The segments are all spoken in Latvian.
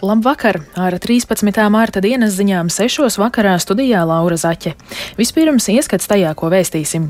Labvakar! Ar 13. mārta dienas ziņām 6. vakarā studijā Laura Zaķe. Vispirms ieskats tajā, ko vēstīsim.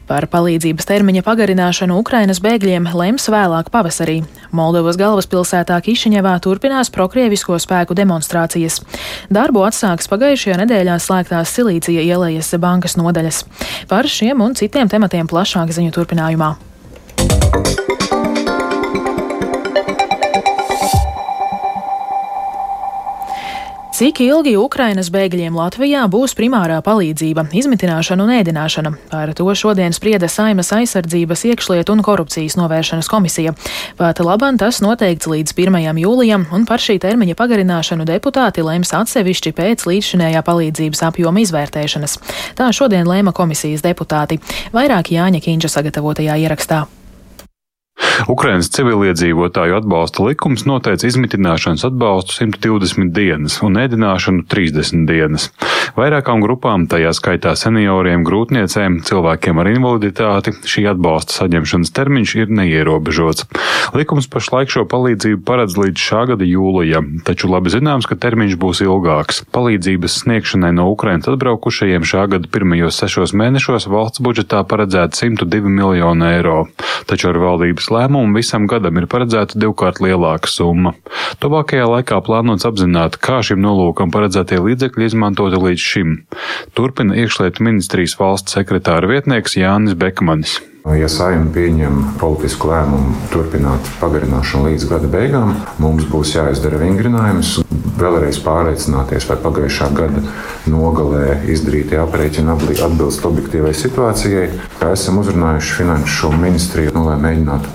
Par palīdzības termiņa pagarināšanu Ukrainas bēgļiem lems vēlāk pavasarī. Moldovas galvaspilsētā Kišiņevā turpinās prokrievisko spēku demonstrācijas. Darbu atsāks pagājušajā nedēļā slēgtās Silīcija ielejas bankas nodaļas. Par šiem un citiem tematiem plašāk ziņu turpinājumā. Cik ilgi Ukrainas bēgļiem Latvijā būs primārā palīdzība, izmitināšana un ēdināšana? Par to šodien sprieda Saeimas aizsardzības, iekšlietu un korupcijas novēršanas komisija. Pat labam tas noteikts līdz 1. jūlijam, un par šī termiņa pagarināšanu deputāti lems atsevišķi pēc līdzšinējā palīdzības apjoma izvērtēšanas. Tā šodien lēma komisijas deputāti. Vairāk Jāņa Kīņša sagatavotajā ierakstā. Ukrainas civiliedzīvotāju atbalsta likums noteica izmitināšanas atbalstu 120 dienas un ēdināšanu 30 dienas. Vairākām grupām, tajā skaitā senioriem, grūtniecēm, cilvēkiem ar invaliditāti, šī atbalsta saņemšanas termiņš ir neierobežots. Likums pašlaik šo palīdzību paredz līdz šā gada jūlijam, taču labi zināms, ka termiņš būs ilgāks. Palīdzības sniegšanai no Ukrainas atbraukušajiem šā gada pirmajos 6 mēnešos valsts budžetā paredzēta 102 miljonu eiro, taču ar valdības lēmumu visam gadam ir paredzēta 2-kārt lielāka summa. Tuvākajā laikā plānots apzināt, kā šim nolūkam paredzētie līdzekļi izmantoti līdz šim. Turpina iekšlietu ministrijas valsts sekretāra vietnieks Jānis Bekmanis. Ja Saeima pieņem politisku lēmumu turpināt pagarināšanu līdz gada beigām, mums būs jāizdara vingrinājums, vēlreiz pārliecināties, vai pagājušā gada nogalē izdarītie aprēķini atbilst objektīvai situācijai. Esam uzrunājuši finanšu ministriju, lai mēģinātu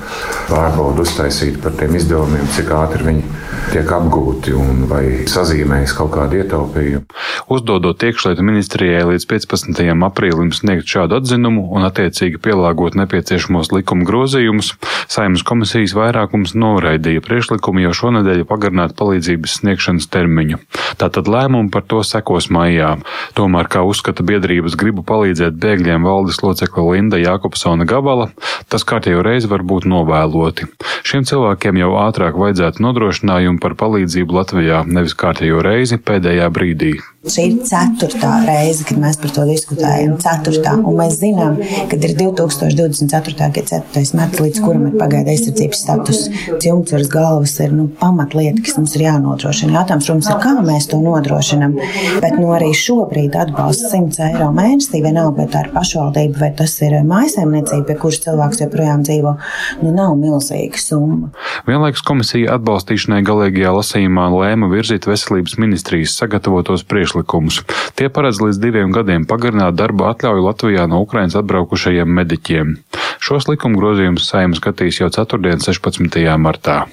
pārbaudu uztaisīt par tiem izdevumiem, cik ātri viņi tiek apgūti un vai sazīmējas kaut kādu ietaupījumu. Uzdodot iekšlietu ministrijai līdz 15. aprīlim sniegt šādu atzinumu un attiecīgi pielāgot nepieciešamos likuma grozījumus, Saeimas komisijas vairākums noraidīja priekšlikumu jau šonedēļ pagarināt palīdzības sniegšanas termiņu. Tātad lēmumu par to sekos maijā. Tomēr, kā uzskata biedrības gribu palīdzēt bēgļiem valdes locekle Linda Jākopsone Gabala, tas kārtējo reizi var būt novēloti. Šiem cilvēkiem jau ātrāk vajadzētu nodrošinājumu par palīdzību Latvijā, nevis kārtējo reizi pēdējā brīdī. Šī ir 4. reize, kad mēs par to diskutējam. 4. Un mēs zinām, ka ir 2024. gada 4. marts, līdz kuram ir pagaida aizsardzības status. Jumtsvaras galvas ir pamatlieta, kas mums ir jānodrošina. Jautājums, protams, ir, kā mēs to nodrošinam. Bet arī šobrīd atbalsts 100 eiro mēnesī, vienalga, vai tā ir pašvaldība, vai tas ir mājsaimniecība, pie kuras cilvēks joprojām dzīvo, nav milzīga summa. Vienlaikus komisija atbalstīšanai galīgajā lasījumā lēma virzīt veselības ministrijas sagatavotos priekšlikumus. Tie paredz līdz 2 gadiem pagarināt darba atļauju Latvijā no Ukrainas atbraukušajiem mediķiem. Šos likuma grozījumus Saeima skatīs jau 4. 16. martā.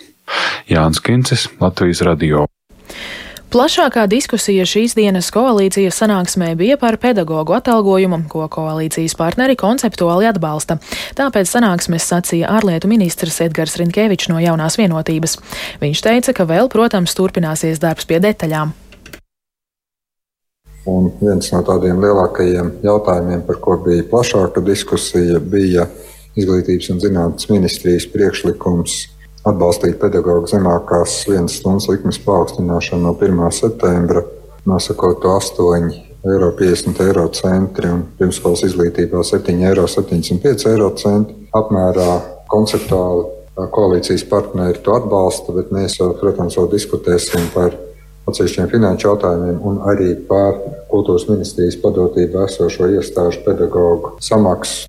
Jānis Kincis, Latvijas radio. Plašākā diskusija šīs dienas koalīcijas sanāksmē bija par pedagogu atalgojumu, ko koalīcijas partneri konceptuāli atbalsta. Tāpēc sanāksmes sacīja ārlietu ministrs Edgars Rinkēvičs no Jaunās vienotības. Viņš teica, ka vēl, protams, turpināsies darbs pie detaļām. Un viens no tādiem lielākajiem jautājumiem, par ko bija plašāka diskusija, bija Izglītības un zinātnes ministrijas priekšlikums atbalstīt pedagogu zemākās 1 stundas likmes paaugstināšanu no 1. septembra, nosakot to 8,50 eiro un pirmskolas izglītībā 7,75 eiro apmērā. Konceptuāli koalīcijas partneri to atbalsta, bet mēs, protams, vēl diskutēsim par atsevišķiem finanšu jautājumiem un arī par kultūras ministrijas padotību esošo iestāžu pedagogu samaksu.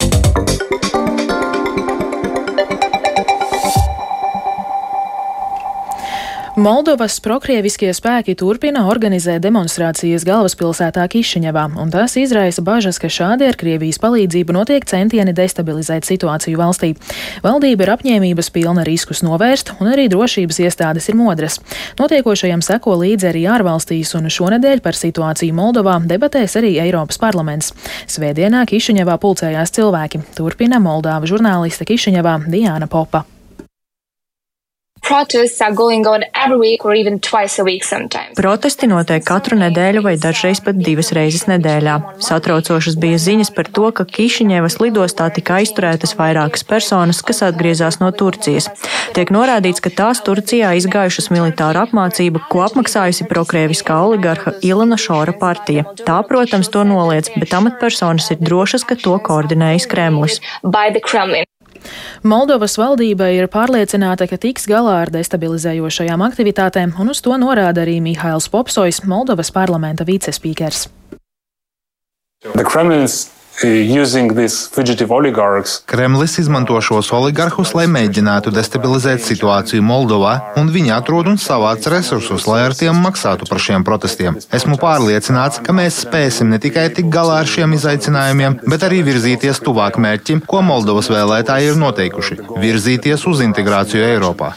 Moldovas prokrieviskie spēki turpina organizēt demonstrācijas galvaspilsētā Kišiņevā, un tas izraisa bažas, ka šādi ar Krievijas palīdzību notiek centieni destabilizēt situāciju valstī. Valdība ir apņēmības pilna riskus novērst, un arī drošības iestādes ir modras. Notiekošajam seko līdzi arī ārvalstīs, un šonedēļ par situāciju Moldovā debatēs arī Eiropas parlaments. Svētdienā Kišiņevā pulcējās cilvēki. Turpina Moldāva žurnāliste Kišiņevā Diāna Popa. Protesti notiek katru nedēļu vai dažreiz pat 2 reizes nedēļā. Satraucošas bija ziņas par to, ka Kišiņevas lidostā tika aizturētas vairākas personas, kas atgriezās no Turcijas. Tiek norādīts, ka tās Turcijā izgājušas militāru apmācību, ko apmaksājusi prokrieviskā oligarha Ilona Šora partija. Tā, protams, to noliedz, bet amatpersonas ir drošas, ka to koordinējis Kremlis. Moldovas valdība ir pārliecināta, ka tiks galā ar destabilizējošajām aktivitātēm, un uz to norāda arī Mihails Popsojs, Moldovas parlamenta vicespīkers. Kremlis izmanto šos oligarhus, lai mēģinātu destabilizēt situāciju Moldovā, un viņi atrod un savāc resursus, lai ar tiem maksātu par šiem protestiem. Esmu pārliecināts, ka mēs spēsim ne tikai tikt galā ar šiem izaicinājumiem, bet arī virzīties tuvāk mērķim, ko Moldovas vēlētāji ir noteikuši – virzīties uz integrāciju Eiropā.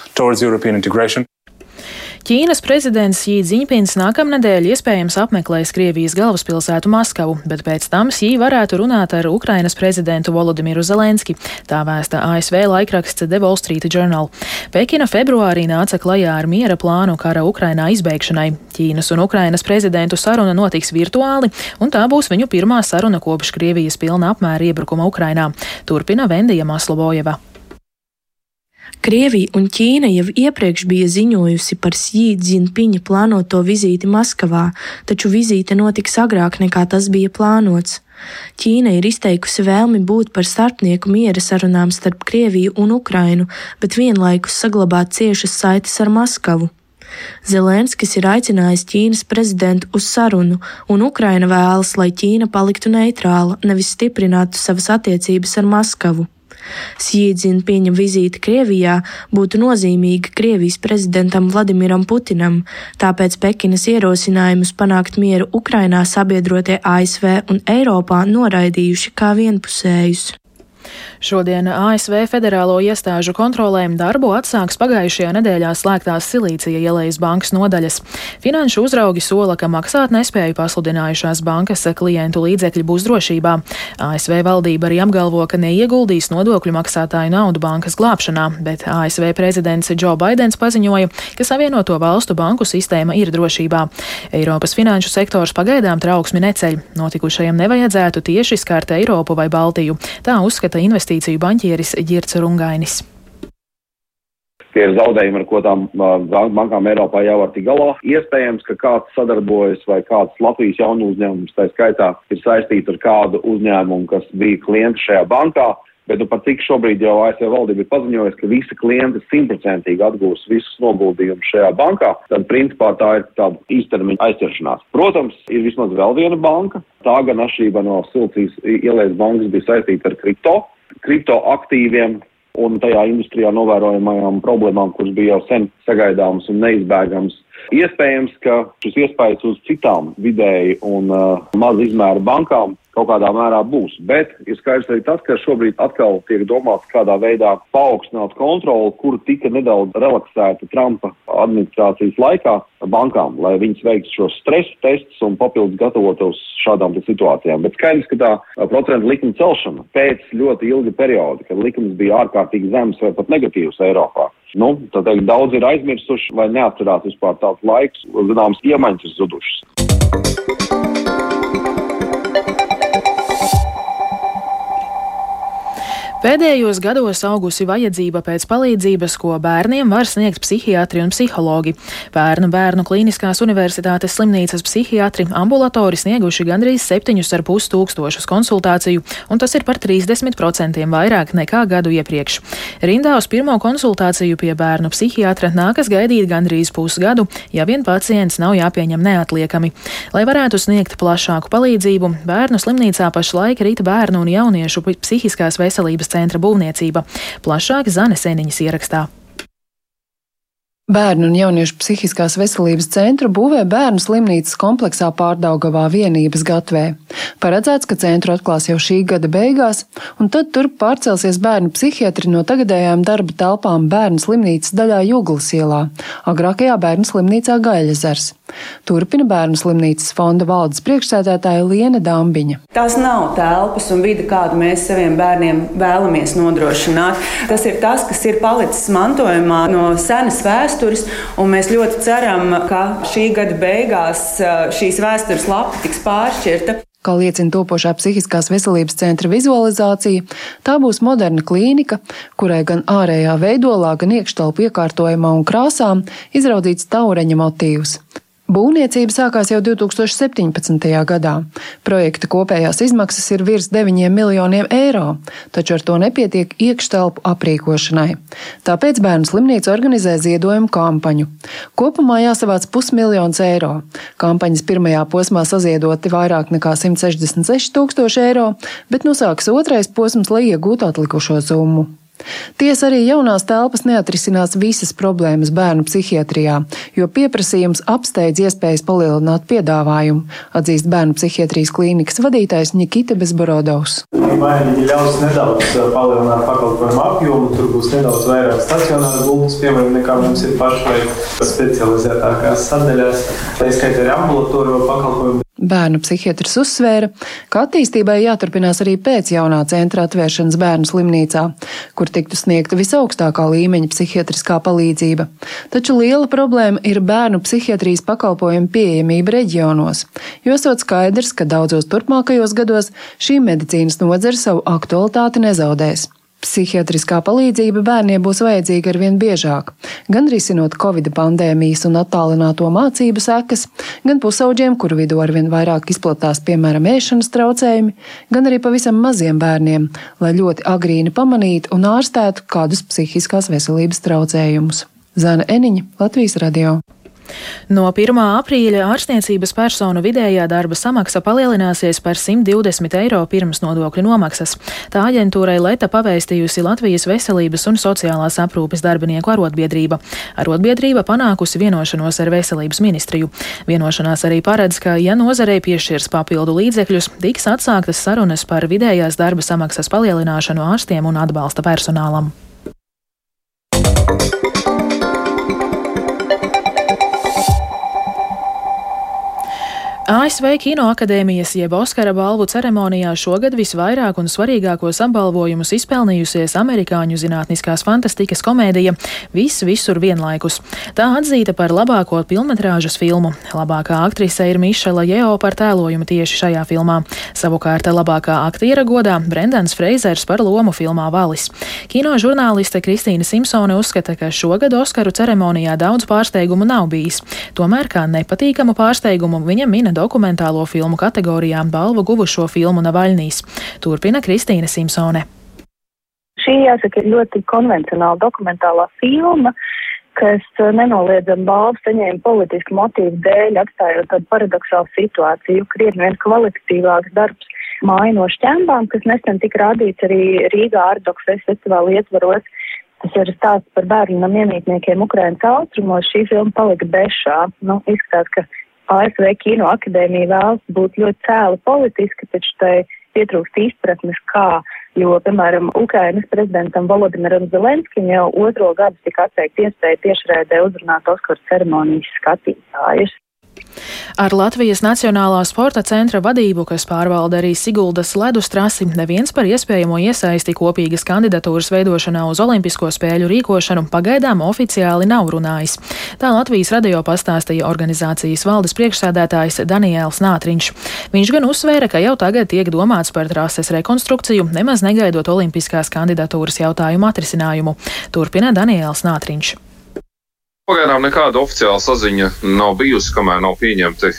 Ķīnas prezidents Xi Džiņpins nākamnedēļ iespējams apmeklēs Krievijas galvaspilsētu Maskavu, bet pēc tam Xi varētu runāt ar Ukrainas prezidentu Volodimiru Zelenski, tā vēsta ASV laikraksts The Wall Street Journal. Pekina februārī nāca klajā ar miera plānu kara Ukrainā izbeigšanai. Ķīnas un Ukrainas prezidentu saruna notiks virtuāli, un tā būs viņu pirmā saruna kopš Krievijas pilna apmēra iebrukuma Ukrainā. Turpina Vendija Maslobojeva. Krievija un Ķīna jau iepriekš bija ziņojusi par Xi Džiņpiņa plānoto vizīti Maskavā, taču vizīte notiks agrāk nekā tas bija plānots. Ķīna ir izteikusi vēlmi būt par starpnieku miera sarunām starp Krieviju un Ukrainu, bet vienlaikus saglabāt ciešas saites ar Maskavu. Zelenskis ir aicinājis Ķīnas prezidentu uz sarunu, un Ukraina vēlas, lai Ķīna paliktu neitrāla, nevis stiprinātu savas attiecības ar Maskavu. Xi Džiņpiņa vizīte Krievijā būtu nozīmīga Krievijas prezidentam Vladimiram Putinam, tāpēc Pekinas ierosinājumus panākt mieru Ukrainā sabiedrotie ASV un Eiropā noraidījuši kā vienpusējus. Šodien ASV federālo iestāžu kontrolēm darbu atsāks pagājušajā nedēļā slēgtās Silīcija ielejas bankas nodaļas. Finanšu uzraugi sola, ka maksāt nespēju pasludinājušās bankas klientu līdzekļi būs drošībā. ASV valdība arī apgalvo, ka neieguldīs nodokļu maksātāju naudu bankas glābšanā, bet ASV prezidents Joe Baidens paziņoja, ka Savienoto valstu banku sistēma ir drošībā. Eiropas finanšu sektors pagaidām trauksmi neceļ. Notikušajam nevajadzētu tieši skart Eiropu vai Baltiju. Tā uzskata investīciju baņķieris Ģirds Rungainis. Tie ir zaudējumi, ar ko tām bankām Eiropā jau var tikt galā. Iespējams, ka kāds sadarbojas vai kāds Latvijas jaunu uzņēmums, tā skaitā, ir saistīts ar kādu uzņēmumu, kas bija klienti šajā bankā, bet pat cik šobrīd jau ASV valdība ir paziņojusi, ka visi klienti 100% atgūs visus noguldījumus šajā bankā, tad principā tā ir tāda īstermiņa aizķeršanās. Protams, ir vismaz vēl viena banka, tā gan atšķirībā no Silīcijas ielejas bankas bija saistīta ar kripto aktīviem un tajā industrijā novērojamajām problēmām, kuras bija jau sen sagaidāmas un neizbēgamas. Iespējams, ka šis iespējas uz citām vidēji un maza izmēra bankām kaut kādā mērā būs, bet ir skaidrs arī tas, ka šobrīd atkal tiek domāts, kādā veidā paaugstināt kontroli, kur tika nedaudz relaksēta Trumpa administrācijas laikā bankām, lai viņas veiktu šos stresa testus un papildus gatavotos šādām situācijām. Bet skaidrs, ka tā procentu likuma celšana pēc ļoti ilga perioda, kad likums bija ārkārtīgi zems vai pat negatīvs Eiropā. Tad daudz ir aizmirsuši vai neatcerās vispār tāds laiks, zināms, iemaņas ir zudušas. Pēdējos gados augusi vajadzība pēc palīdzības, ko bērniem var sniegt psihiatri un psihologi. Bērnu klīniskās universitātes slimnīcas psihiatri ambulatori snieguši gandrīz 7,5 tūkstošus konsultāciju, un tas ir par 30% vairāk nekā gadu iepriekš. Rindā uz pirmo konsultāciju pie bērnu psihiatra nākas gaidīt gandrīz pusgadu, ja vien pacients nav jāpieņem neatliekami. Lai varētu sniegt plašāku palīdzību, bērnu slimnīcā pašlaik rīt bērnu un jauniešu psihiskās veselības centra būvniecība. Plašāk Zane Seniņas ierakstā. Bērnu un jauniešu psihiskās veselības centru būvē bērnu slimnīcas kompleksā Pārdaugavā Vienības gatvē. Paredzēts, ka centru atklās jau šī gada beigās, un tad tur pārcelsies bērnu psihiatri no tagadējām darba telpām bērnu slimnīcas daļā Juglas ielā, agrākajā bērnu slimnīcā Gaļezers. Turpina Bērnu slimnīcas fonda valdes priekšsēdētāja Liene Dambiņa. Tās nav telpas un vide, kādu mēs saviem bērniem vēlamies nodrošināt. Tas ir tas, kas ir palicis mantojumā no senas vēstures, un mēs ļoti ceram, ka šī gada beigās šīs vēstures lapa tiks pāršķirta. Kā liecina topošā psihiskās veselības centra vizualizācija, tā būs moderna klīnika, kurai gan ārējā veidolā, gan iekštelpu iekārtojumā un krāsām izraudzīts taureņa motīvs. Būvniecība sākās jau 2017. gadā. Projekta kopējās izmaksas ir virs 9 miljoniem eiro, taču ar to nepietiek iekštelpu aprīkošanai. Tāpēc Bērnu slimnīca organizē ziedojumu kampaņu. Kopumā jāsavāc 500 000 eiro. Kampaņas pirmajā posmā saziedoti vairāk nekā 166 000 eiro, bet nosāks otrais posms, lai iegūtu atlikušo summu. Tiesa arī jaunās telpas neatrisinās visas problēmas bērnu psihiatrijā, jo pieprasījums apsteidz iespējas palielināt piedāvājumu, atzīst Bērnu psihiatrijas klīnikas vadītājs Nikita Bezborodovs. Vai viņi ļaus nedaudz palielināt pakalpojumu apjomu, tur būs nedaudz vairāk stacionāru gultas, piemēram, nekā mums ir pašlaik specializētākās sadaļās, tā izskaitā arī ambulatoriju pakalpojumu. Bērnu psihiatrs uzsvēra, ka attīstībai jāturpinās arī pēc jaunā centra atvēršanas Bērnu slimnīcā, kur tiktu sniegta visaugstākā līmeņa psihiatriskā palīdzība. Taču liela problēma ir bērnu psihiatrijas pakalpojumu pieejamība reģionos, jo esot skaidrs, ka daudzos turpmākajos gados šī medicīnas nozare savu aktualitāti nezaudēs. Psihiatriskā palīdzība bērniem būs vajadzīga arvien biežāk, gan risinot Covid pandēmijas un attālināto mācību sekas, gan pusauģiem, kuru vidū arvien vairāk izplatās, piemēram, ēšanas traucējumi, gan arī pavisam maziem bērniem, lai ļoti agrīni pamanītu un ārstētu kādus psihiskās veselības traucējumus. Zana Eniņa, Latvijas radio. No 1. aprīļa ārstniecības personu vidējā darba samaksa palielināsies par 120 eiro pirms nodokļu nomaksas. Tā aģentūrai Leta pavēstījusi Latvijas veselības un sociālās aprūpes darbinieku arotbiedrība. Arotbiedrība panākusi vienošanos ar veselības ministriju. Vienošanās arī paredz, ka, ja nozarei piešķirs papildu līdzekļus, tiks atsāktas sarunas par vidējās darba samaksas palielināšanu ārstiem un atbalsta personālam. ASV Kinoakadēmijas jeb Oskara balvu ceremonijā šogad visvairāk un svarīgākos apbalvojumus izpelnījusies amerikāņu zinātniskās fantastikas komēdija Viss visur vienlaikus. Tā atzīta par labāko pilnmetrāžas filmu. Labākā aktrise ir Mišela Jeo par tēlojumu tieši šajā filmā. Savukārt labākā aktiera godā Brendans Freizers par lomu filmā Valis. Kino žurnāliste Kristīna Simpsone uzskata, ka šogad Oskaru ceremonijā daudz pārsteigumu nav bijis. Tomēr kā nepatīkamu pārsteigumu viņa mina dokumentālo filmu kategorijā balvu guvušo filmu Navaļnīs. Turpina Kristīna Simpsone. Šī, jāsaka, ir ļoti konvencionāla dokumentālā filma, kas nenoliedzami balvu saņēma politisku motīvu dēļ, atstājot tādu paradoxālu situāciju, krietni vien kvalitatīvāks darbs Māja no šķembām, kas nesen tika rādīts arī Rīgā Ardok festivāla ietvaros. Tas ir stāsts par bērnu namiemītniekiem Ukrainas austrumos. Šī filma palika bešā. Izskatās, ka ASV Kinoakadēmija vēlas būt ļoti cēli politiski, taču tai pietrūkst izpratnes kā, jo, piemēram, Ukrainas prezidentam Volodimiram Zelenskim jau 2. gadu tika atteikta iespēja tiešraidē uzrunāt Oskaru ceremonijas skatītājus. Ar Latvijas Nacionālā sporta centra vadību, kas pārvalda arī Siguldas ledus trasi, neviens par iespējamo iesaisti kopīgas kandidatūras veidošanā uz Olimpisko spēļu rīkošanu pagaidām oficiāli nav runājis. Tā Latvijas radio pastāstīja organizācijas valdes priekšsēdētājs Daniēls Nātriņš. Viņš gan uzsvēra, ka jau tagad tiek domāts par trases rekonstrukciju, nemaz negaidot olimpiskās kandidatūras jautājumu atrisinājumu. Turpina Daniēls Nātriņš. Pagaidām nekāda oficiāla saziņa nav bijusi, kamēr nav pieņemti,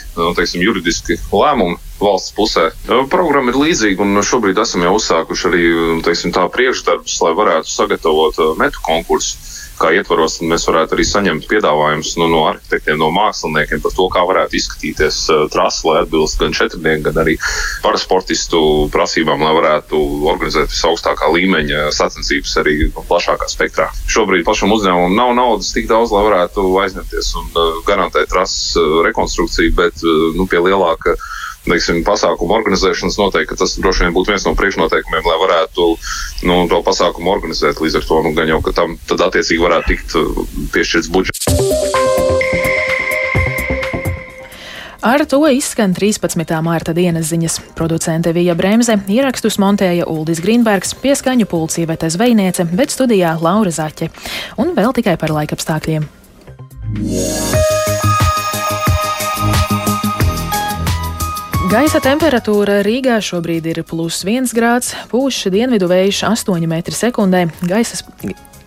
juridiski lēmumi valsts pusē. Programma ir līdzīga, un šobrīd esam jau uzsākuši arī, tā priekšdarbus, lai varētu sagatavot metu konkursu. Kā ietvaros, mēs varētu arī saņemt piedāvājumus no arhitektiem, no māksliniekiem par to, kā varētu izskatīties trasa, lai atbilst gan četrnieku, gan arī parasportistu prasībām, lai varētu organizēt visaugstākā līmeņa sacensības arī plašākā spektrā. Šobrīd pašam uzņēmumam nav naudas tik daudz, lai varētu aizņemties un garantēt trases rekonstrukciju, bet pie lielāka pasākumu organizēšanas noteikti, ka tas droši vien būtu viens no priekšnoteikumiem, lai varētu to pasākumu organizēt. Līdz ar to gan jau, ka tam tad attiecīgi varētu tikt piešķirts budžets. Ar to izskan 13. mārta dienas ziņas. Producente Vija Bremze, ierakstus montēja Uldis Grīnbergs, pie skaņu pults Ivete Zvejniece, bet studijā Laura Zaķe. Un vēl tikai par laikapstākļiem. Gaisa temperatūra Rīgā šobrīd ir +1 grāds, pūš dienvidu vējš 8 m/sekundē,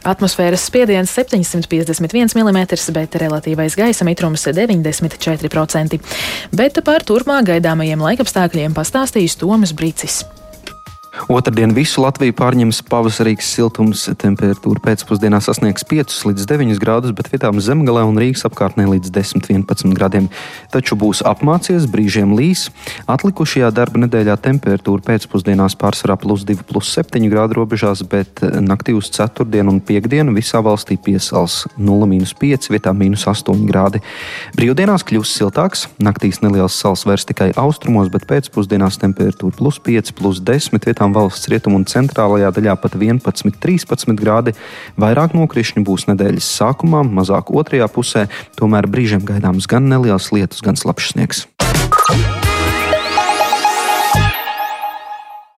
atmosfēras spiediens 751 mm, bet relatīvais gaisa mitrums 94%. Bet par turpmāk gaidāmajiem laikapstākļiem pastāstīs Toms Bricis. Otrdien visu Latviju pārņems pavasarīgs siltums, temperatūra pēcpusdienā sasniegs 5 līdz 9 grādus, bet vietām Zemgalē un Rīgas apkārtnē līdz 10–11 grādiem. Taču būs apmācies, brīžiem līs. Atlikušajā darba nedēļā temperatūra pēcpusdienās pārsvarā +2–+7 grādu robežās, bet naktī uz ceturtdienu un piekdienu visā valstī piesals 0–5, vietām -8 grādi. Brīvdienās kļūs siltāks, naktīs neliels sals vairs tikai austrumos, bet pēcpusdienās temperatūra +5, +10, vietām valsts rietumu un centrālajā daļā pat 11–13 grādi. Vairāk nokrišņu būs nedēļas sākumā, mazāk otrajā pusē, tomēr brīžiem gaidāms gan neliels lietus, gan slapjš sniegs.